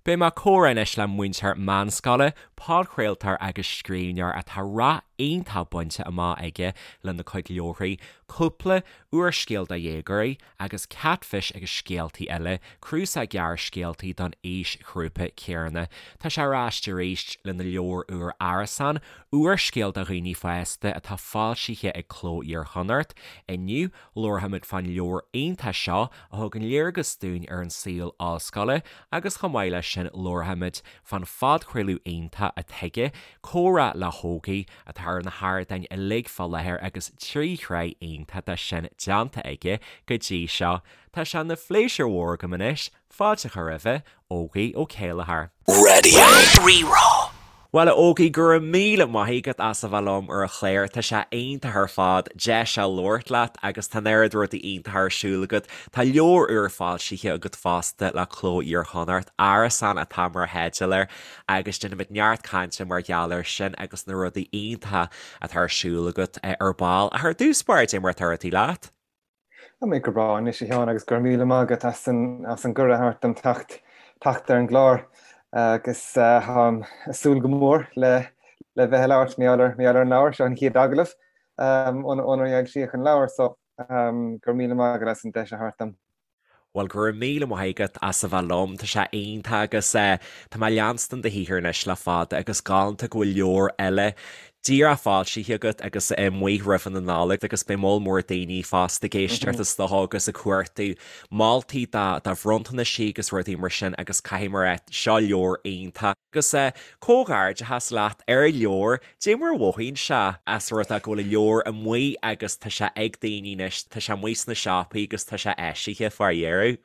Beidh mé ag comhrá anois le múinteoir meánscoile, podchraoltóir agus scríbhneoir atá rath iontach bainte amach aige lena cuid leabharthaí, cúpla úrscéal do dhéagóirí agus Katfish agus Scéaltaí Eile, cnuasach gearrscéaltaí don aoisghrúpa céanna. Tá sé ar ais arís lena leabhar úr Árasán, úrscéal do dhaoine fásta atá foilsithe ag Cló Iar-Chonnacht. Inniu, Labharfaimid fán leabhar iontach seo a thugann léargas dúinn ar an saol ollscoile agus chomh maith leis sin labharfaimid fán phodchraoladh iontach atá aige, Comhrá le hÓgie, atá ar na hardáin uilig fá láthair agus 3 shraith iontach de sin déanta aige go dtí seo. Tá sé ina phléisiúr mhór agam anois Fáilte a chur roimhe, Ógie Ó Céilleachair. Raidió Rí-Rá. Bhuel, a Ógie, go raibh míle maith agat as a bheith liom ar an chlár. Tá sé iontach ar fad deis a labhairt leat agus tá an oiread rudaí iontacha ar siúl agat. Tá leabhar úr foilsithe agat fosta le Cló Iar-Chonnacht, Árasán atá mar theideal air agus déanfaimid neart cainte mar gheall air sin agus na rudaí iontacha atá ar siúl agat ar ball. Ach ar dtús báire, cad é mar atá rudaí leat? Tá mé go breá anois a Sheáin agus go raibh míle maith agat as an as an gcuireadh a thabhairt dom teacht teacht ar an gclár agus táim ag súil go mór le le bheith ag labhairt mar gheall ar mar gheall ar an leabhar seo an chéad agallamh ónar foilsíodh an leabhar so go raibh míle maith agat as an deis a thabhairt dom. Bhuel, go raibh míle maith agat as a bheith liom, tá sé iontach agus tá mé ag leanstan do shaothar anois le fada agus galánta go bhfuil leabhar eile díreach foilsithe agat agus amuigh roimh na Nollag agus beidh moll mór daoine fosta ag éisteacht is dócha agus ag cuartú moltaí do bhronntanais agus rudaí mar sin agus caithfidh mé a rá seo leabhar iontach agus comhghairdeachas leat ar an leabhar. Dé mar a mhothaíonn sé as rud é go bhfuil an leabhar amuigh agus tá sé ag daoine anois, tá sé amuigh sna siopaí agus tá sé eisithe fá dheireadh.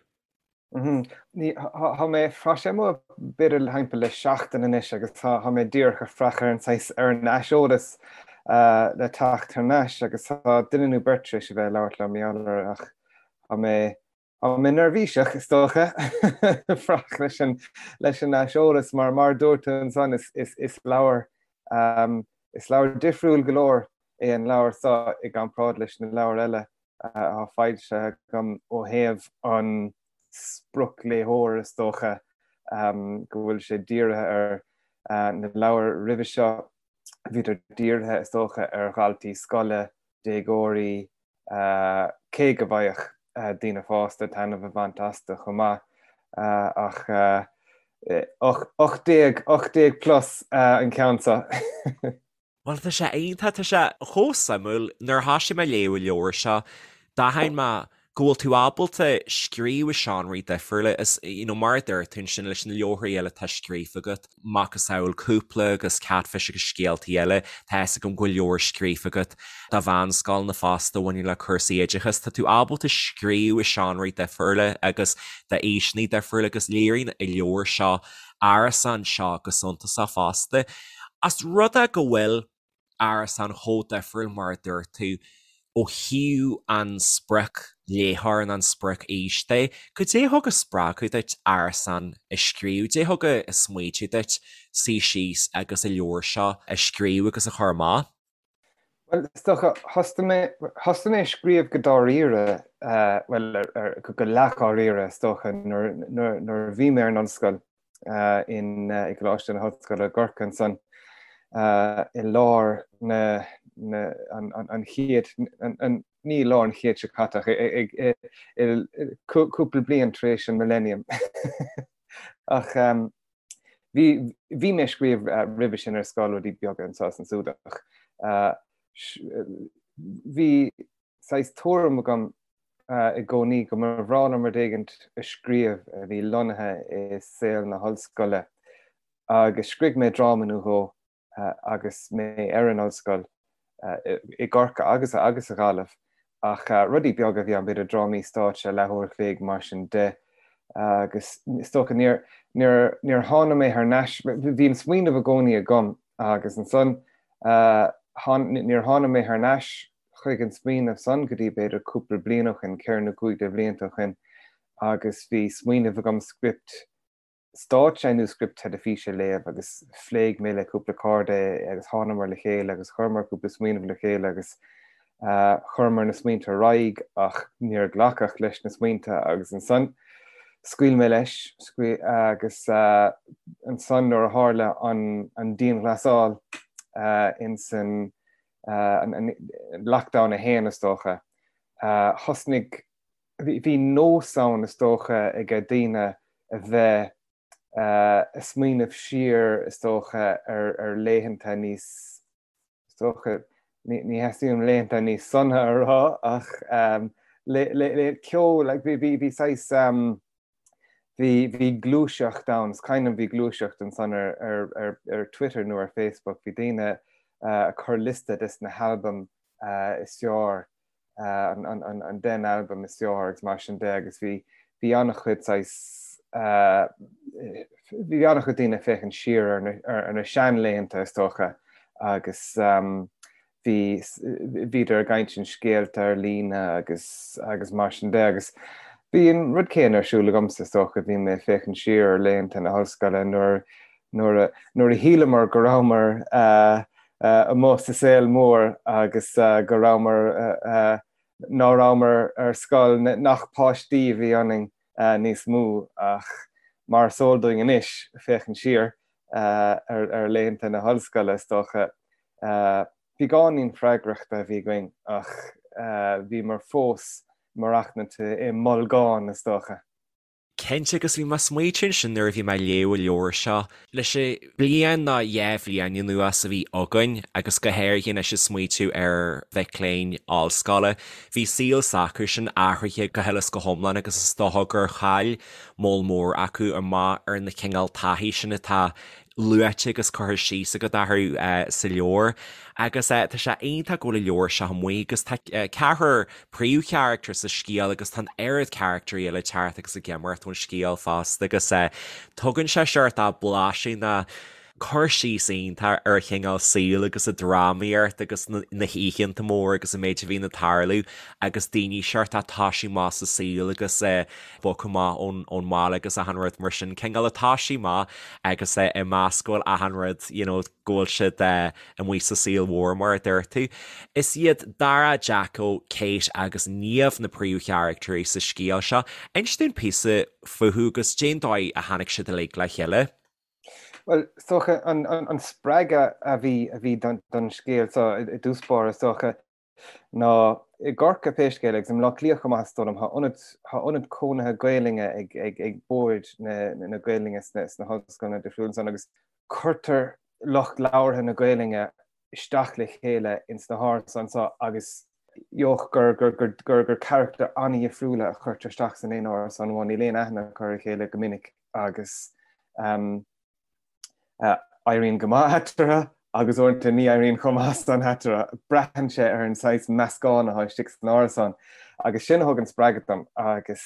Ní, tá mé, tá sé amuigh b'fhéidir thimpeall le seachtain anois agus tá, tá mé díreach ag fuireach ar an saghas, ar an aiseolas le teacht thar n-ais agus tá duine nó beirt tar éis a bheith ag labhairt liom mar gheall air ach tá mé, Tá mé neirbhíseach, is dócha, fuireach leis an leis an aiseolas mar mar a dúirt tú ansan is is is leabhar is leabhar difriúil go leor é an leabhar seo i gcomparáid leis na leabhair eile atá foilsithe agam ó thaobh an spriocléitheoir is dócha go bhfuil sé dírithe ar na leabhair roimhe seo bhíodar dírithe is dócha ar dhaltaí scoile, déagóirí, cé go bhfaigheadh daoine fásta taitneamh a bhaint astu chomh maith, ach 18, 18 plus an ceann seo. Bhuel, tá sé iontach, tá sé chomh suimiúil. Nuair a thoisigh mé ag léamh an leabhair seo, d'aithin mé go bhfuil tú ábalta scríobh i seánraí difriúla is, you know, mar a dúirt tú ansin leis na leabharthaí eile atá scríofa agat, macasamhail cúpla agus Katfish agus scéaltaí eile, tá fhios agam go bhfuil leabhar scríofa agat do mheánscoileanna fosta a bhaineann le cúrsaí oideachais. Tá tú ábalta scríobh i seánraí difriúla agus d'aoiseanna difriúla agus léiríonn an leabhar seo, Árasán seo go suntasach fosta. As rud é go bhfuil. Árasán chomh difriúil mar a dúirt tú ó thaobh an spriocléitheoir nó an sprioc-aois de. Cad é a thug an spreagadh duit Árasán a scríobh? Cad é a thug an smaoitiú duit suí síos agus an leabhar seo a scríobh agus a chur amach? Bhuel, is dócha, thosaigh mé, thosaigh mé ag scríobh go dáiríre, bhuel, go leathdháiríre, is dócha, nuair, nuair, nuair a bhí mé ar an ollscoil. in i gColáiste na hOllscoile i gCorcaigh ansan i lár na an chéad ní lár an chéid seo caite ach cúpla bliain tar éis an millennium. Ach bhí bhí mé ag scríobh roimhe sin ar scoil rudaí beaga anseo is ansúd ach bhí saghas tuairim agam i gcónaí go mba bhreá liom rud éigint a scríobh a bhí lonnaithe i saol na hollscoile agus scrígh mé dráma nó dhó agus mé ar an ollscoil i gCorcaigh agus agus sa Ghaillimh ach rudaí beaga a bhí ann, b'fhéidir drámaí stáitse leathuair a chloig mar sin de agus is dócha níor níor níor tháinig mé thar n-ais, bhí an smaoineamh i gcónaí agam agus ansan níor tháinig mé thar n-ais chuig an smaoineamh san go dtí b'fhéidir cúpla bliain ó shin, ceithre nó cúig de bhlianta ó shin, agus bhí smaoineamh agam script stáitse nó script teilifíse a léamh agus phléigh mé le cúpla cairde é agus thánamar le chéile agus chuireamar cúpla smaoineamh le chéile agus chuireamar na smaointe ar aghaidh ach níor glacadh leis na smaointe agus ansan. Scaoil mé leis agus ansan nuair a tharla an dianghlasáil insan lockdown 1 is dócha, thosnaigh, bhí nós ann is dócha ag daoine a bheith ag smaoineamh siar is dócha ar laethanta níos Is dócha, ní theastaíonn uaim laethanta níos sona a rá ach le ceol, like bhí bhí saghas bhí bhí gluaiseacht ann, is cuimhin liom bhí gluaiseacht ansan ar ar ar ar Twitter nó ar Facebook, bhí daoine ag cur liosta des na halbaim is fearr an 10 n-albam is fearr agus mar sin de agus bhí bhí an-chuid saghas bhí an-chuid daoine ag féachaint siar ar na ar na seanlaethanta is dócha agus bhí bhíodar ag insint scéalta ar líne agus agus mar sin de agus bhí an rud céanna ar siúl agamsa is dócha, bhí mé ag féachaint siar ar laethanta na hollscoile nuair nuair a nuair a shíleamar go rabhamar amuigh sa saol mór agus go rabhamar, ná rabhamar ar scoil, nach páistí a bhí ionainn níos mó ach mar is eol dúinn anois, féachaint siar ar laethanta na hollscoile is dócha, beagáinín freagrachta a bhí againn ach bhíomar fós maireachtaint i mbolgán is dócha. Cinnte, agus bhí mé ag smaoitiú ansin nuair a bhí mé ag léamh an leabhair seo, leis an bliain nó 2 bhliain anuas a bhí againn, agus go háirithe anois ag smaoitiú ar mhic léinn ollscoile, bhí saol s'acusan athraithe go huile is go hiomlán agus is dócha gur chaill moll mór acu amach ar na cineál taithí sin atá luaite agus curtha síos agat orthu sa leabhar. Agus tá sé iontach go bhfuil an leabhar seo amuigh agus tá ceathrar príomhcharachtar sa scéal agus tá an oiread carachtarí eile ag teacht agus ag imeacht ón scéal fosta agus tugann sé seort blaiseadh nó cur síos iontach ar an chineál saoil agus an drámaíocht agus na hoícheanta móra agus an méid a bhíonn ag tarlú agus daoine seort ag toisiú amach sa saol agus bogtha amach ón mbaile agus achan rud mar sin, cineál ag toisiú amach agus ag meas go bhfuil achan rud, you know, go bhfuil siad amuigh sa saol mhór mar a dúirt tú. Is iad Dara, Jacko, Kate agus Niamh na príomhcharactairí sa scéal seo. Inis dúinn píosa fúthu agus cén dóigh a tháinig siad uilig le chéile. Bhuel, is dócha an spreagadh a bhí a bhí don scéal seo i dtús báire, is dócha, ná i gCorcaigh pé scéal é agus i mBleá Cliath chomh maith is dóigh liom, tá ionad, tá ionad cónaithe Gaelainne ag, ag, ag Bord na, na Gaelainne sna, sna hollscoileanna difriúla ansan agus cuirtear lucht labhartha na Gaelainne isteach le chéile ins na hárasáin seo agus gheobhaidh gur, gur, gur, gur, gur carachtair an-dhifriúla a chuirtear isteach san aon árasán amháin, níl aon aithne acu ar a chéile go minic agus um, Éiríonn go maith eatarthu agus uaireanta ní éiríonn chomh maith san eatarthu. Braitheann sé ar an saghas meascán atá istigh san árasán agus sin a thug an spreagadh dom agus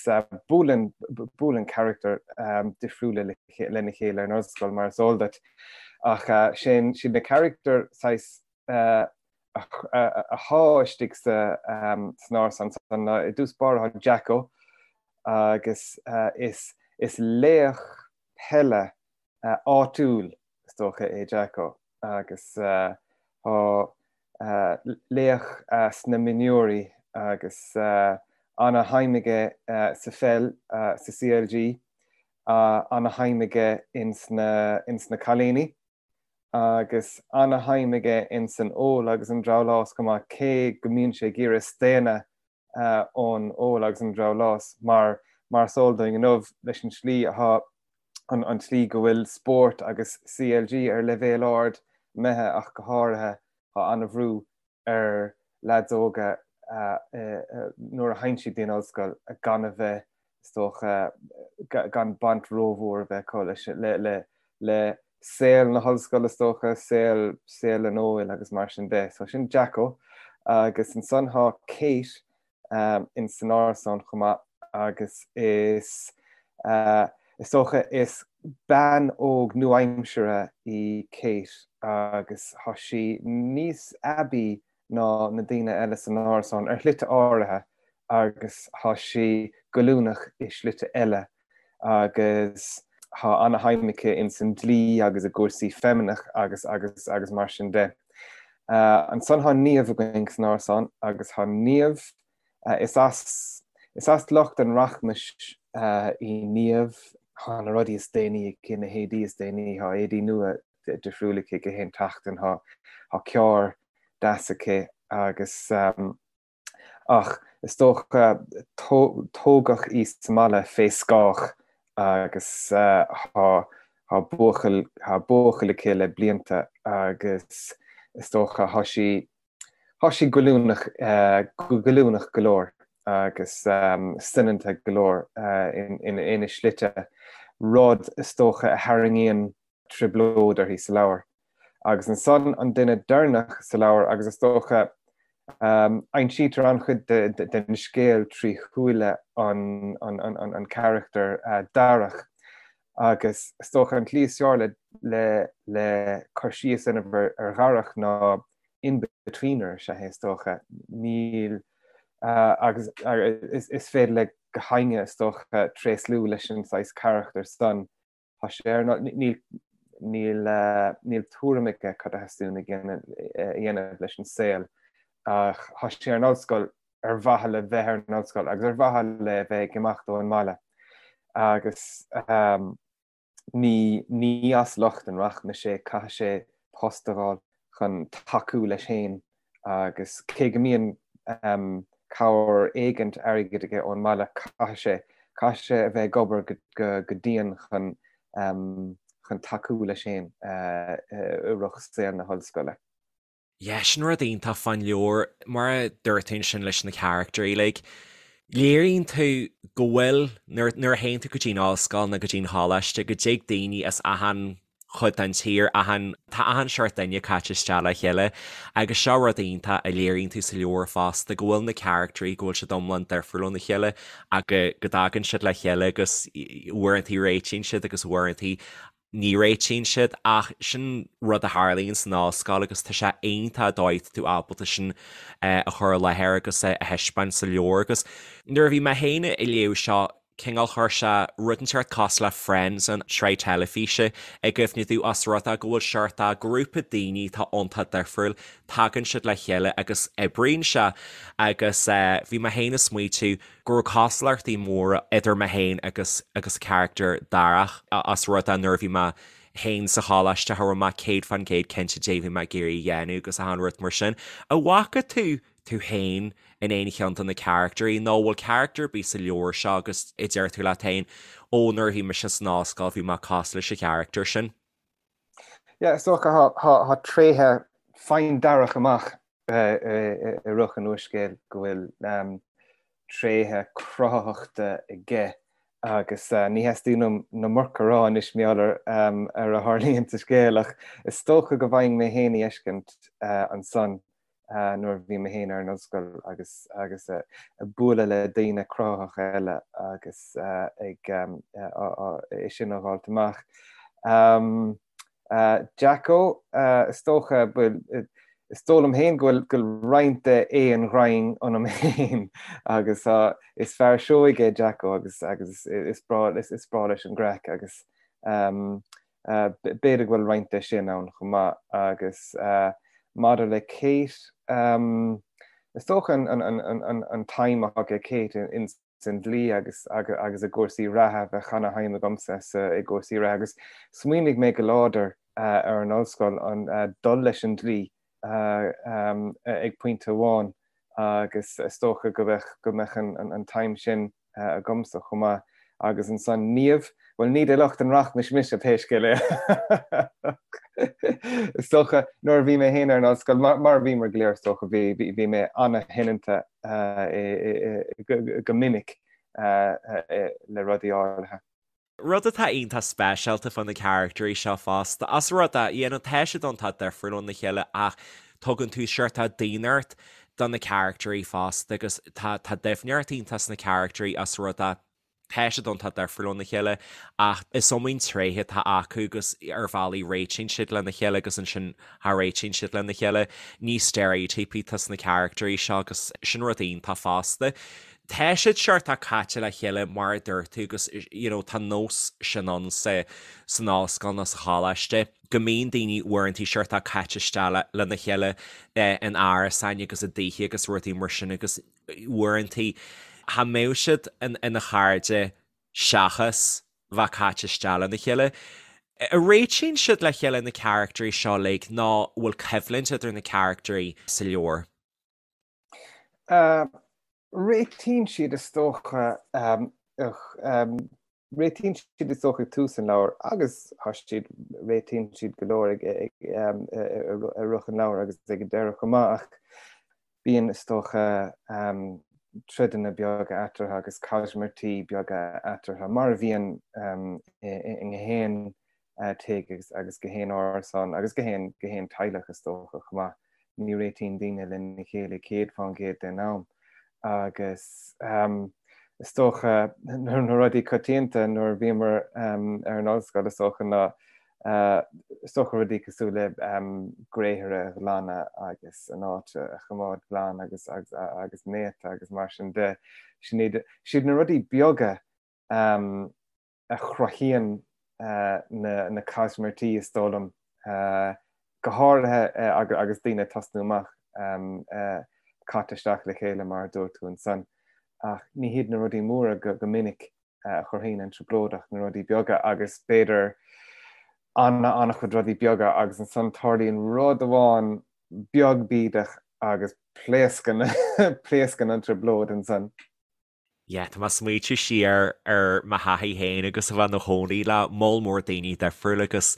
buaileann, buaileann carachtair difriúla lena chéile ar an ollscoil mar is eol duit. Ach sin, siad na carachtair saghas athá istigh san árasán san ná i dtús báire tá Jacko agus is, is laoch peile áitiúil is dócha é Jacko agus tá laoch sna mionúirí agus ana-shuim aige sa pheil sa CLG, ana-shuim aige ins na cailíní agus ana-shuim aige ins an ól agus an drabhlás chomh maith cé go mbíonn sé ag iarraidh staonadh ón ól agus an drabhlás mar mar is eol dúinn inniu leis an tslí atá an an tslí go bhfuil spórt agus CLG ar leibhéal ard imithe ach go háirithe tá an-bhrú ar leaids óga nuair a théann siad dtí'n ollscoil gan a bheith is dócha gan baint rómhór a bheith acu leis le le le saol na hollscoile is dócha, saol, saol an óil agus mar sin de. So sin Jacko agus ansan thá Kate in san árasán chomh maith agus is, is dócha is bean óg nua-aimseartha í Kate agus thá sí níos aibí ná na daoine eile san árasán ar shlite áirithe agus thá sí goilliúnach i slite eile. agus thá ana-shuim aici ins an dlí agus i gcúrsaí feimineach agus agus agus mar sin de. Ansan thá Niamh againn san árasán agus thá Niamh, is as is as lucht an rachmais. Í Niamh, tá na rudaí is déanaí aici, na héadaí is déanaí, tá éadaí nua difriúil aici gach aon tseachtain, tá carr deas aici agus ach is dócha tógadh í sa mbaile fé scáth agus tá buachaill, tá buachaill aici le blianta agus is dócha tá sí Tá sí goilliúnach, goilliúnach go leor agus soineanta go leor ina slite, rud is dócha a tharraingíonn trioblóid uirthi sa leabhar. Agus ansan an duine deireanach sa leabhar agus is dócha aimsítear an-chuid den scéal trí shúile an charachtair Darach agus is dócha an tslí is fearr le le cur síos a dhéanamh ar Dharach ná in-betweener is ea é is dócha. Níl agus is féidir le gach éinne is dócha tréaslú leis an saghas carachtar san. Tá sé ar níl níl níl tuairim aige cad a theastaíonn a dhéanamh leis an saol ach tá sé ar an ollscoil ar mhaithe le bheith ar an ollscoil agus ar mhaithe le bheith ag imeacht ón mbaile agus ní ní as lucht an rachmais é, caithfidh sé post a fháil chun tacú leis féin agus cé go mbíonn cabhair éigint airgid aige ón mbaile caithfidh sé caithfidh sé a bheith ag obair go go dian chun chun tacú leis féin i rith saol na hollscoile. Yeah, sin rud iontach fán leabhar, mar a dúirt tú ansin leis na caractairí, like, léiríonn tú go bhfuil, nuair, nuair a théann tú go dtí an ollscoil nó go dtí an choláiste, go dtig daoine as achan chuid den tír, achan, tá achan seort duine caite isteach le chéile agus seo rud iontach a léiríonn tú sa leabhar fosta, go bhfuil na caractairí, go bhfuil siad iomlán difriúil óna chéile ach go, go dtagann siad le chéile agus uaireantaí réitíonn siad agus uaireantaí ní réitíonn siad ach sin rud a tharlaíonn san ollscoil agus tá sé iontach an dóigh atá tú ábalta sin a chur i láthair agus a thaispeáint sa leabhar agus nuair a bhí mé féin ag léamh seo cineál chuir sé rud inteacht cosúil le Friends an tsraith teilifíse i gcuimhne domh os rud é go bhfuil seort de ghrúpa daoine atá iontach difriúil tagann siad le chéile agus oibríonn sé agus bhí mé féin ag smaoitiú go raibh cosúlachtaí móra idir mé féin agus agus carachtar Darach os rud é nuair a bhí mé féin sa choláiste cha raibh mé 100% cinnte caidé a bhí mé ag iarraidh a dhéanamh agus achan rud mar sin. An bhfaca tú tú féin in aon cheann de na carachtarí nó an bhfuil carachtar ar bith sa leabhar seo agus a deir tú leat féin ó nuair a bhí mise san ollscoil bhí mé cosúil leis an charachtar sin? Yeah, is dócha tá tréithe faigheann Darach amach i rith an úrscéil go bhfuil tréithe cruthaitheachta aige agus ní theastaíonn uaim an iomarca a rá anois mar gheall ar a tharlaíonn sa scéal ach is dócha go bhfaighinn mé féin a fheiscint ansan nuair a bhí mé féin ar an ollscoil agus agus ag bualadh le daoine cruthaitheacha eile agus ag é sin a dh'fháilt amach. Jacko, is dócha, bhuel, is dóigh liom féin go bhfuil roinnt de aon ghraidhin ionam féin agus is fear seoigh é Jacko agus agus is breá is breá leis an gcraic agus b'fhéidir go bhfuil roinnt de sin ann chomh maith agus maidir le Kate, is dócha an tsuim atá ag Kate in san dlí agus agus i gcúrsaí reatha, bheadh ana-shuim agamsa sa i gcúrsaí reatha agus smaoinigh mé go láidir ar an ollscoil an dul leis an dlí ag pointe amháin agus is dócha go mbeadh go mbeadh an tsuim sin agamsa chomh maith agus ansan Niamh, bhuel ní de lucht an rachmais mise pé scéal é. Is dócha nuair a bhí mé féin ar an ollscoil, mar a bhíomar go léir is dócha, bhí bhí mé ana-shoineanta go minic le rudaí áirithe. Rud atá iontach speisialta fá na caractairí seo fosta, os rud é, you know, tá siad iontach difriúil óna chéile ach tugann tú seort daonnacht do na caractairí fosta agus tá tá doimhneacht iontach sna caractairí os rud é, tá siad iontach difriúil óna chéile ach is iomaí tréith atá acu agus ar bhealaí réitíonn siad lena chéile agus ansin cha réitíonn siad lena chéile. Ní steiréitíopaí atá sna caractairí seo agus sin rud iontach fosta. Tá siad seort caite le chéile mar a dúirt tú agus you know tá nós sin ann sa san ollscoil nó sa choláiste go mbíonn daoine uaireantaí seort caite isteach lena chéile in árasáin agus i dtithe agus rudaí mar sin agus uaireantaí cha mbeadh siad ina chairde. seachas bheith caite isteach lena chéile. An réitíonn siad le chéile na caractairí seo uilig nó bhfuil coimhlint idir na caractairí sa leabhar? Réitíonn siad is dócha, réitíonn siad is dócha ag tús an leabhair agus tá siad, réitíonn siad go leor ag i rith an leabhair agus ag an deireadh chomh maith ach bíonn is dócha troideanna beaga eatarthu agus caismirtí beaga eatarthu mar a bhíonn i ngach aon tigh agus gach aon árasán agus gach aon gach aon teaghlach is dócha chomh maith. Ní réitíonn daoine lena chéile 100% den am agus is dócha na rudaí coitianta nuair a bhíomar ar an ollscoil is dócha ná is dócha rudaí cosúil le gréithre a ghlanadh agus an áit a choimeád glan agus agus néata agus mar sin de. Sin iad na rudaí beaga a chruthaíonn na caismirtí, is dóigh liom, go háirithe agus daoine ag tosnú amach caite isteach le chéile mar a dúirt tú ansan. Ach ní hiad na rudaí móra go minic a chruthaíonn an trioblóid ach na rudaí beaga agus b'fhéidir an-an-chuid rudaí beaga agus ansan tarlaíonn rud amháin beag bídeach agus pléascann pléascann an trioblóid ansan. Yeah, tá mé ag smaoitiú siar ar mo thaithí féin agus a bheith i mo chónaí le moll mór daoine difriúla agus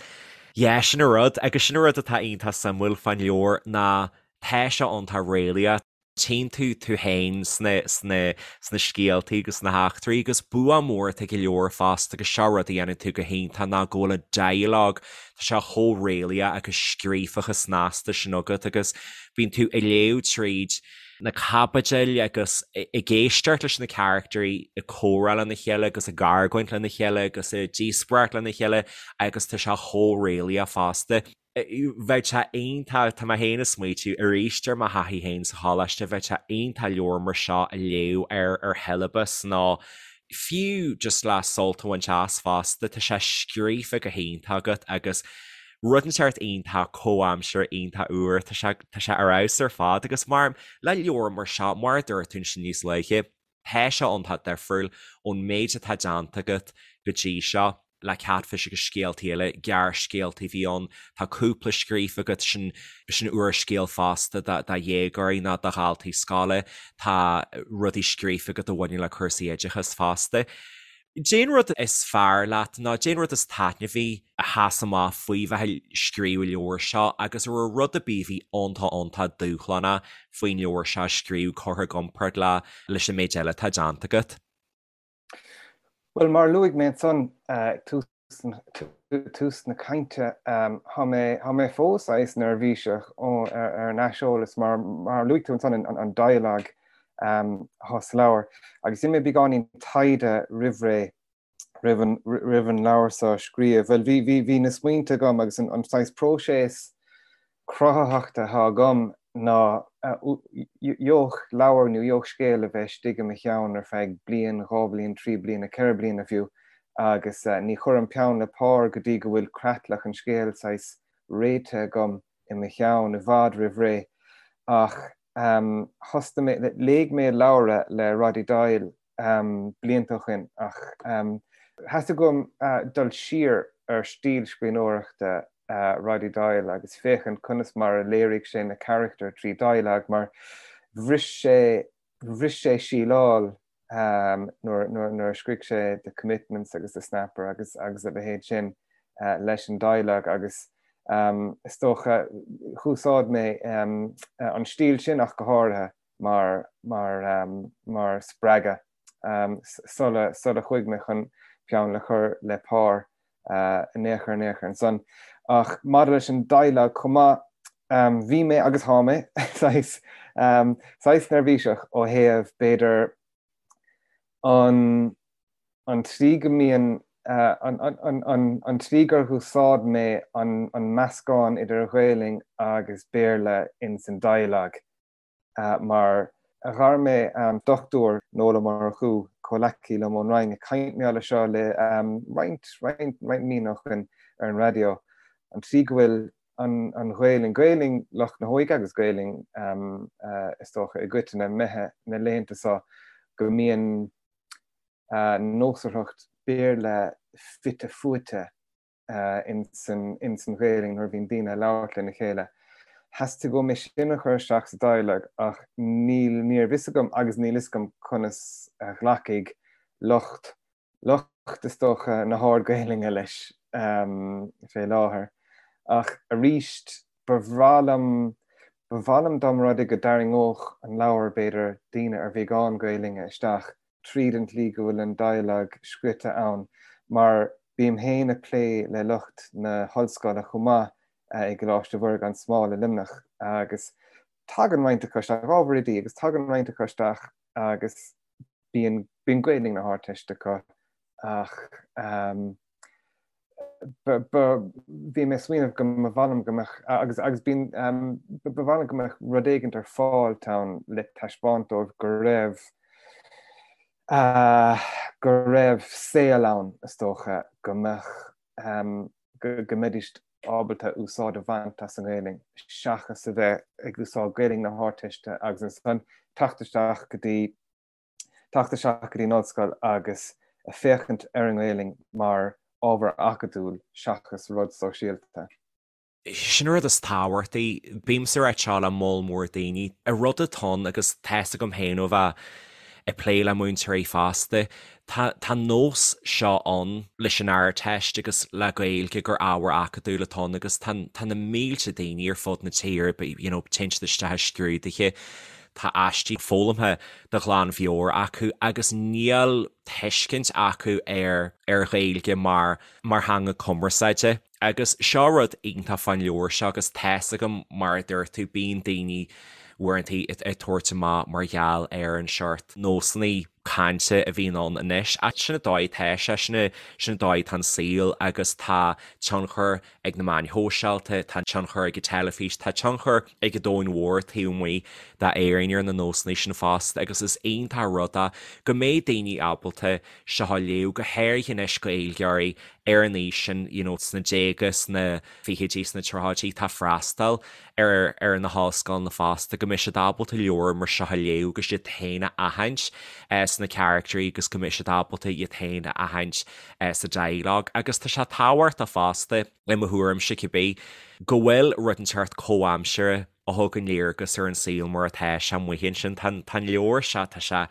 yeah, sin an rud agus sin an rud atá iontach suimiúil fán leabhar ná tá sé iontach réalaíoch. Tchíonn tú tú féin sna, sna, sna scéaltaí agus sna heachtraí agus bua mór atá ag an leabhar fosta agus seo rud a dhéanann tú go hiontach ná go bhfuil an dialogue, tá sé chomh réalaíoch agus scríofa chomh snasta sin agat agus bíonn tú ag léamh tríd na caibidil agus ag éisteacht leis na caractairí ag comhrá lena chéile agus ag argóint lena chéile agus ag díospóireacht lena chéile agus tá sé chomh réalaíoch fosta. Bheadh sé iontach, tá mé féin ag smaoitiú arís ar mo thaithí féin sa choláiste, bheadh sé iontach leabhar mar seo a léamh ar ar shiollabas nó fiú just le sult a bhaint as fosta, tá sé scríofa go hiontach agat agus Rud inteacht iontach comhaimseartha, iontach úr, tá sé, tá sé ar fheabhas ar fad agus mar, le leabhar mar seo, mar a dúirt tú ansin níos luaithe, tá sé iontach difriúil ón méid atá déanta agat go dtí seo le Katfish agus scéaltaí eile, gearrscéaltaí a bhí ann, tá cúpla scríofa agat, sin, sin úrscéal fosta do, do dhéagóirí nó do dhaltaí scoile, tá rudaí scríofa agat a bhaineann le cúrsaí oideachais fosta. Cén rud is fearr leat nó cén rud is taitneamhaí a sheas amach faoi bheith ag scríobh an leabhair seo agus an raibh rud ar bith a bhí iontach iontach dúshlánach faoin leabhar seo a scríobh curtha i gcomparáid le leis an méid eile atá déanta agat? Bhuel, mar a luaigh mé ansan ag tús tús na cainte, tá mé tá mé fós saghas neirbhíseach ar an aiseolas mar mar a luaigh tú ansan an dialogue atá sa leabhar agus dhein mé beagáinín taighde roimh ré roimh an roimh an leabhar seo a scríobh. Bhuel bhí bhí bhí na smaointe agam agus an an saghas próiseas cruthaitheachta atá agam ná gheobhadh leabhar nó gheobhadh scéal a bheith istigh i mo cheann ar feadh bliain, 2 bhliain, 3 bliana, 4 bliana fiú agus ní chuirim peann le pár go dtí go bhfuil creatlach an scéil saghas réitithe agam i mo cheann i bhfad roimh ré. Ach thosnaigh mé, léigh mé leabhar le Roddy Doyle blianta ó shin ach theastaigh uaim dul siar ar stíl scríbhneoireachta Roddy Doyle agus féachaint conas mar a léirigh sé na carachtair trí dialogue mar bhris sé bhris sé síleáil nuair nuair a scrígh sé The Commitments agus The Snapper agus agus a leithéid sin leis an dialogue agus is dócha úsáid mé an stíl sin ach go háirithe mar mar mar spreagadh sula sula chuaigh mé chun peann le chur le pár in aon chor in aon chor ansan. Ach maidir leis an dialogue chomh maith, bhí mé agus thá mé saghas saghas neirbhíseach ó thaobh b'fhéidir an an tslí go mbíonn an an an an tslí gur úsáid mé an an meascán idir Ghaelainn agus Béarla ins an dialogue. Mar ghair mé an Dr Noel Ó Murchú, comhleacaí liom ón Roinn, ag caint mé leis seo le roinnt, roinnt, roinnt míonna ó shin ar an raidió, an tslí go bhfuil an, an Ghaelainn, Gaelainn lucht na hóige agus Gaelainn is dócha i gcoitinne, imithe na laethanta seo, go mbíonn. Nósmhaireacht Béarla fite fuaite ins an Ghaelainn nuair a bhíonn daoine ag labhairt lena chéile. Theastaigh uaim é sin a chur isteach sa dialog ach níl, ní raibh fhios agam agus níl fhios agam conas a ghlacfaidh lucht, lucht is dócha na hArd-Ghaelainne leis fé láthair. Ach arís, ba bhreá liom, ba mhaith liom dá mba rud é go dtarraingeodh an leabhar, b'fhéidir, daoine ar bheagán Gaelainne isteach tríd an tslí go bhfuil an dialog scrite ann, mar bím féin ag plé le lucht na hollscoile chomh maith i gColáiste Mhuire gan Smál i Luimneach agus tagann roinnt acu isteach, ábhar oidí, agus tagann roinnt acu isteach agus bíonn, bíonn Gaelainn na hArdteiste acu ach bhí mé ag smaoineamh go mba mhaith liom go mbeadh, agus agus bíonn, ba mhaith liom go mbeadh rud éigint ar fáil ann le taispeáint dóibh go raibh, go raibh saol ann, is dócha, go mbeadh, go mbeidís ábalta úsáid a bhaint as an nGaelainn seachas a bheith ag úsáid Gaelainn na hArdteiste agus ansan teacht isteach go dtí teacht isteach go dtí an ollscoil agus féachaint ar an nGaelainn mar ábhar acadúil seachas rud sóisialta. Sin an rud is tábhachtaí. Bímse ag rá seo le moll mór daoine. An rud atá ann, agus tá's agam féin ó bheith ag plé le múinteoirí fosta, tá an nós seo ann leis an Ardteist agus le Gaeilge gur ábhar acadúil atá ann agus tá tá na mílte daoine ar fud na tíre, you know, téann siad isteach i scrúduithe, Tá aistí foghlamtha de ghlanmheabhair acu agus níl tuiscint acu ar ar Ghaeilge mar mar theanga cumarsáide. Agus seo rud iontach fán leabhar seo agus tá's agam mar a dúirt tú bíonn daoine uaireanta ag tabhairt amach mar gheall ar an seort nósanna cainte a bhíonn ann anois. Ach sin an dóigh atá sé, sin sin an dóigh atá an saol agus tá tionchar ag na meáin shóisialta, tá tionchar ag an teilifís, tá tionchar ag an domhan mhór taobh amuigh d'Éirinn ar na nósanna sin fosta agus is iontach an rud é go mbeidh daoine ábalta seo a léamh, go háirithe anois Gaeilgeoirí ar an aois sin, you know, sna déaga, sna fichidí, sna tríochaidí, atá ag freastal ar ar na hollscoileanna fosta, go mbeidh siad ábalta leabhar mar seo a léamh agus iad féin a aithint sna caractéirí agus go mbeidh siad ábalta iad féin a aithint sa dialog. Agus tá sé tábhachtach fosta, i mo thuairimse cibé, go bhfuil rud inteacht comhaimseartha a thugann léargas ar an saol mar atá sé amuigh ansin. Tá an leabhar seo, tá sé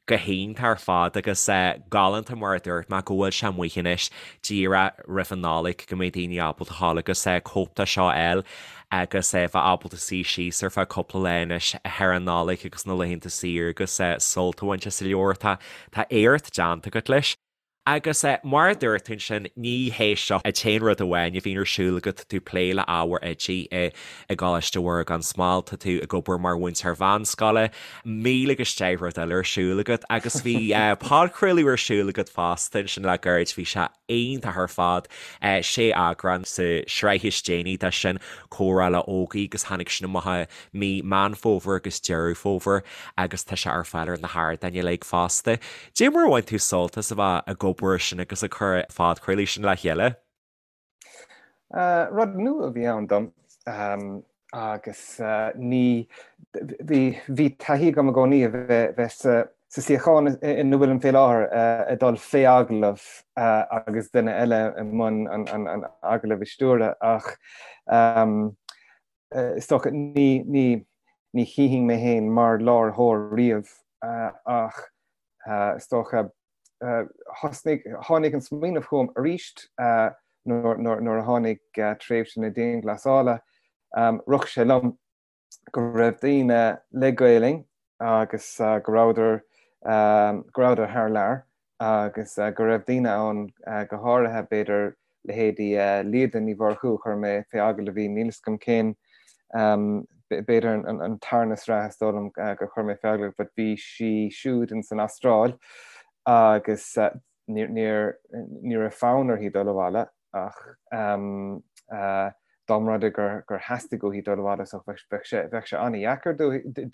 go hiontach ar fad agus galánta mar a dúirt mé go bhfuil sé amuigh anois díreach roimh an Nollaig go mbeidh daoine ábalta a ghabháil agus cóip de seo a fháil agus bheith ábalta suí síos ar feadh cúpla lá anois thar an Nollaig agus na laethanta saoire agus sult a bhaint as an leabhar. Tá tá éacht déanta agat leis. Agus mar a dúirt tú ansin, ní hé seo an t-aon rud amháin a bhíonn ar siúl agat, tá tú ag plé le ábhair oidí i gColáiste Mhuire gan Smál, tá tú ag obair mar mhúinteoir mheánscoile, 1000 agus 10 rud eile ar siúl agat agus bhí podchraoladh ar siúl agat fosta ansin le gairid, bhí sé iontach ar fad, sé eagrán sa sraith is déanaí de sin, Comhrá le Ógie agus tháinig sin amach i mí Meán Fómhair agus Deireadh Fómhair agus tá sé ar fáil ar na hardáin uilig fosta. Dé mar a bhain tú sult as a bheith ag obair sin agus ag cur an phodchraoladh sin le chéile? Rud nua a bhí ann dom agus ní, bhí, bhí taithí agam i gcónaí a bheith sa suíochán ina bhfuilim fé láthair, ag dul fé agallamh agus duine eile i mbun an agallaimh a stiúradh ach is dócha, ní, ní, ní chífinn mé féin mar láithreoir riamh ach is dócha, thosnaigh, tháinig an smaoineamh chugam arís nuair, nuair, nuair a tháinig tréimhse na dianghlasála, rith sé liom go raibh daoine le Gaelainn agus go rabhadar, go rabhadar thar lear agus go raibh daoine ann, go háirithe b'fhéidir leithéidí Líoda Ní Mhurchú, chuir mé fé agallamh í, níl 'fhios agam cén, b'fhéidir an tarna sraith is dóigh liom gur chuir mé fé agallamh, but bhí sí siúd ins an Astráil agus ní ní raibh fonn uirthi dul abhaile ach dá mba rud é gur theastaigh uaithi dul abhaile so bheadh sé bheadh sé an-dheacair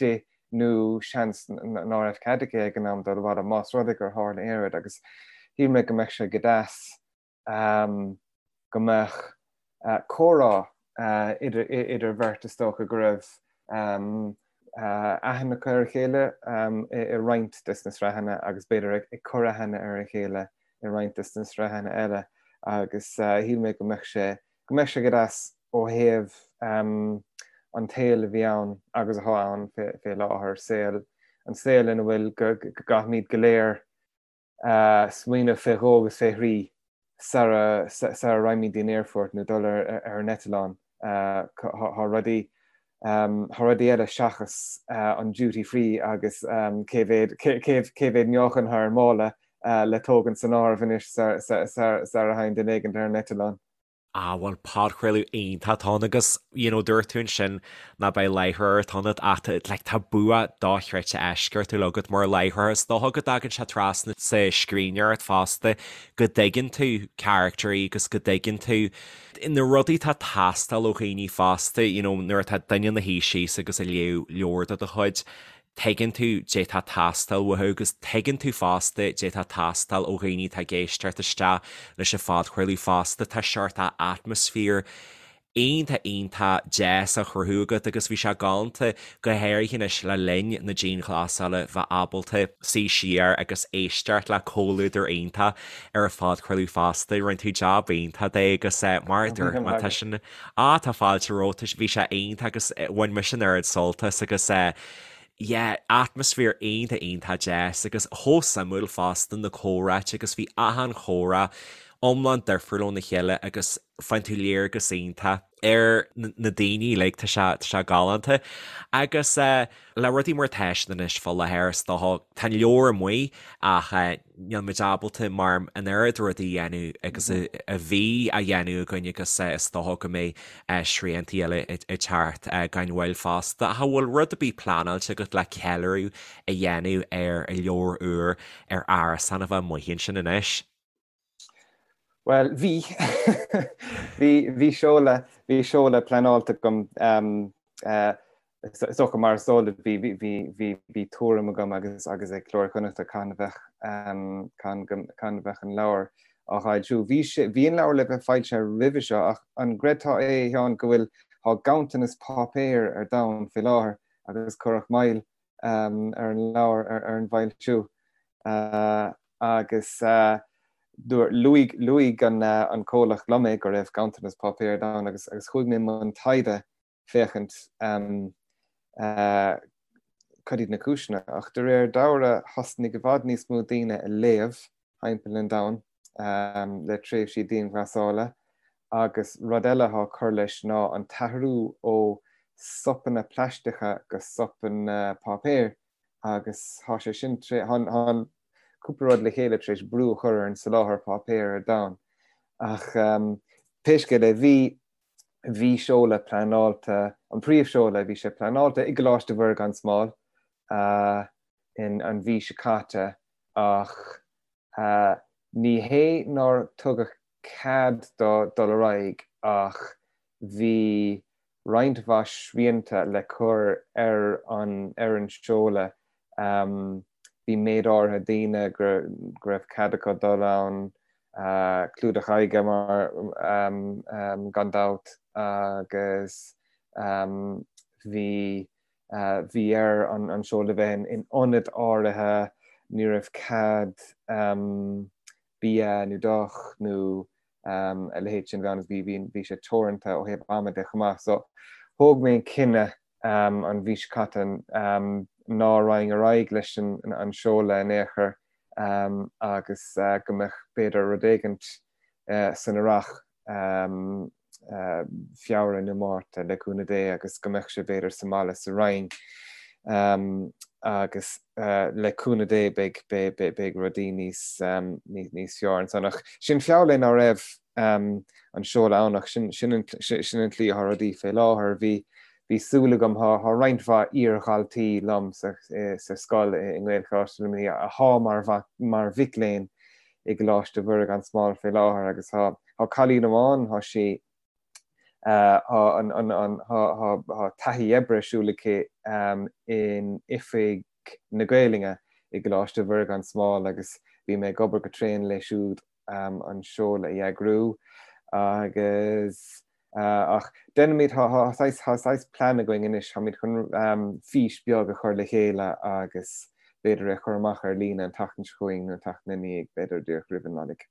di nó seans ná raibh cead aici ag an am dul abhaile más rud é gur tharla aon rud agus shíl mé go mbeadh sé go deas go mbeadh comhrá idir idir bheirt is dócha go raibh. aithne acu ar a chéile i roinnt des na sraitheanna agus b'fhéidir ag cur aithne ar a chéile i roinnt des na sraitheanna eile agus shíl mé go mbeadh sé go mbeadh sé go deas ó thaobh an tsaoil a bhí ann agus atá ann fé láthair, saol, an saol ina bhfuil go gcaithfimid go léir smaoineamh fé dhó agus fé thrí sara sara raghaimid dtí'n aerfort nó dul ar ar an eitleán. Tá rudaí tá rudaí eile seachas an duty free agus cé mhéad cé mhéad meáchan atá ar an mála le tógaint san áireamh anois sara thagann duine éigint ar an eitleán. Ah bhuel podchraoladh iontach atá ann agus you know dúirt tú ansin ná beidh láithreoir ionat ach tá like tá bua dochreidte eisceachtúil agat mar láithreoir. Is dócha go dtagann sé trasna sa scríbhneoireacht fosta go dtuigeann tú caractairí agus go dtuigeann tú na rudaí atá ag teastáil ó dhaoine fosta you know nuair atá duine ina shuí síos agus ag léamh leabhar de do chuid Tuigeann tú dé tá ag teastáil uathu agus tuigeann tú fosta dé tá ag teastáil ó dhaoine atá ag éisteacht isteach leis an phodchraoladh fosta. Tá seort atmaisféar iontach iontach deas á chruthú agat agus bhí sé galánta, go háirithe anois le linn na dianghlasála, bheith ábalta suí siar agus éisteacht le comhluadar iontach ar an phodchraoladh fosta. Rinne tú jab iontach de agus mar a dúirt mé, tá sin Ah tá fáilte romhat, bhí sé iontach agus bhain mise an oiread sult as agus yeah atmaisféar iontach iontach deas agus chomh suimiúil fosta na comhráite agus bhí achan chomhrá iomlán difriúil óna chéile agus faigheann tú léargas iontach ar na daoine uilig, tá sé tá sé galánta agus le rudaí mar atá siad anois fá láthair is dócha tá an leabhar amuigh ach níl muid ábalta mar an oiread rudaí a dhéanamh agus a bhí á dhéanamh againn agus is dócha go mbeidh sriantaí eile ag teacht gan mhoill fosta. Ach an bhfuil rud ar bith pleanáilte agat le ceiliúradh a dhéanamh ar an leabhar úr ar Árasán a bheith amuigh ansin anois? Bhuel, bhí. Bhí, bhí seoladh, bhí seoladh pleanáilte agam, is dócha mar is eol duit, bhí, bhí, bhí, bhí tuairim agam agus, agus ag Cló Iar-Chonnachta cathain a bheadh, cathain go, cathain a bheadh an leabhar á fhoilsiú. Bhí sé, bhí an leabhar le bheith foilsithe roimhe seo ach an gcreidfeá é, a Sheáin, go bhfuil, tá ganntanas páipéir ar domhan fé láthair agus cuireadh moill ar an leabhar, ar an bhfoilsiú. Agus luaigh, luaigh an comhlacht liom é go raibh ganntanas páipéir ar domhan agus agus chuaigh mé i mbun taighde féachaint cad iad na cúiseanna. Ach de réir dealraimh thosnaigh i bhfad níos mó daoine a léamh thimpeall an domhain le tréimhsí dianghlasála agus rud eile atá ag cur leis ná an t-athrú ó sopanna plaisteacha go sopanna páipéir agus tá sé sin, tá cúpla rud le chéile tar éis brú a chur ar an soláthar páipéir ar domhan. Ach pé scéal é, bhí, bhí seoladh pleanáilte, an príomhsheoladh, bhí sé pleanáilte i gColáiste Mhuire gan Smál in an mhí seo caite ach ní hé nár tugadh cead dó dul ar aghaidh ach bhí roinnt mhaith srianta le cur ar an ar an seoladh. Bhí méid áirithe daoine go raibh cead acu dul ann, clúdach aghaidhe mar gan dabht agus bhí bhí air an seoladh a bheith in ionad áirithe, ní raibh cead bia nó deoch nó a leithéid sin bheith ann bhí bhí bhí sé teoranta ó thaobh ama de chomh maith. So thóg mé an cinneadh an mhí seo caite ná raghainn ar aghaidh leis an an seoladh in aon chor agus go mbeadh b'fhéidir rud éigint san earrach Feabhra nó Márta, le cúnamh Dé, agus go mbeadh sé b'fhéidir sa mbaile sa Rinn agus le cúnamh Dé beidh beidh rudaí níos níos fearr ansan. Ach sin feall é ná raibh an seoladh ann ach sin sin an sin an tslí atá rudaí fé láthair. Bhí bhí súil agam, thá thá roinnt mhaith iar-dhaltaí liom sa sa scoil i nGaelcholáiste Luimnigh athá mar mar mhic léinn i gColáiste Mhuire gan Smál fé láthair agus thá Tá cailín amháin, tá sí, tá an, an, an, tá, tá, tá taithí oibre ar siúl aici in Oifig na Gaelainne i gColáiste Mhuire gan Smál agus bhí mé ag obair go tréan léi siúd an seoladh a eagrú agus. Ach déanfaimid, tá saghas plean againn anois, táimid chun fís beag a chur le chéile agus b'fhéidir é a chur amach ar líne an tseachtain seo chugainn nó an tseachtain ina dhiaidh, b'fhéidir díreach roimh an Nollaig.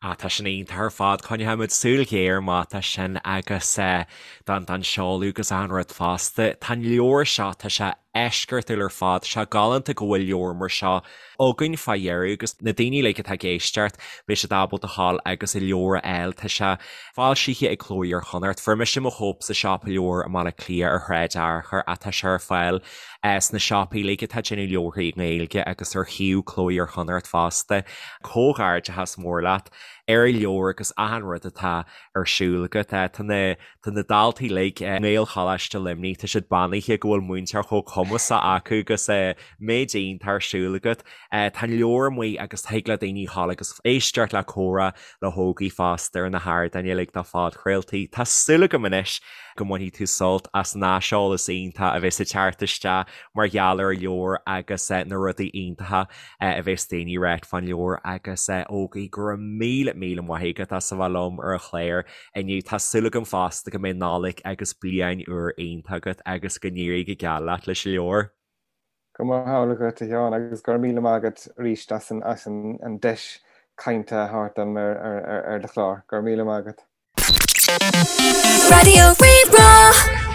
Ah, tá sin iontach ar fad. Coinneoidh muid súil ghéar amach dó sin agus don don seoladh agus achan rud fosta. Tá an leabhar seo, tá sé eisceachtúil ar fad. Tá sé galánta go bhfuil leabhar mar seo againn fá dheireadh agus na daoine uilig atá ag éisteacht, beidh siad ábalta dhul agus an leabhar a fháil. Tá sé foilsithe ag Cló Iar-Chonnacht. Fuair mise mo chóip sa siopa leabhar i mBaile Átha Cliath ar Shráid Fhearchair ach tá sé ar fáil sna siopaí uilig atá ag déanamh leabharthaí i nGaeilge agus ar shuíomh Cló Iar-Chonnacht fosta. Comhghairdeachas mór leat ar an leabhar agus achan rud atá ar siúl agat. Tá na Tá na daltaí uilig i nGaelcholáiste Luimnigh, tá siad beannaithe go bhfuil múinteoir chomh cumasach acu agus méid iontach ar siúl agat. Tá an leabhar amuigh agus thig le daoine dhul agus éisteacht le comhrá le hÓgie fosta ar na hardáin uilig do phodchraoltaí. Tá súil agam anois go mbainfidh tú sult as an aiseolas iontach a bheas ag teacht isteach mar gheall ar an leabhar agus na rudaí iontacha a bheas daoine ag ráit fán leabhar agus Ógie go raibh míle míle maith agat as a bheith liom ar an chlár inniu. Tá súil agam fosta go mbeidh Nollaig agus Bliain Úr iontach agat agus go n-éirí go geal leat leis an leabhar. Go mba hamhlaidh dhuit, a Sheáin, agus go raibh míle maith agat arís as an deis cainte a thabhairt dom ar do chlár. Go raibh míle maith agat. Raidió Rí-Rá.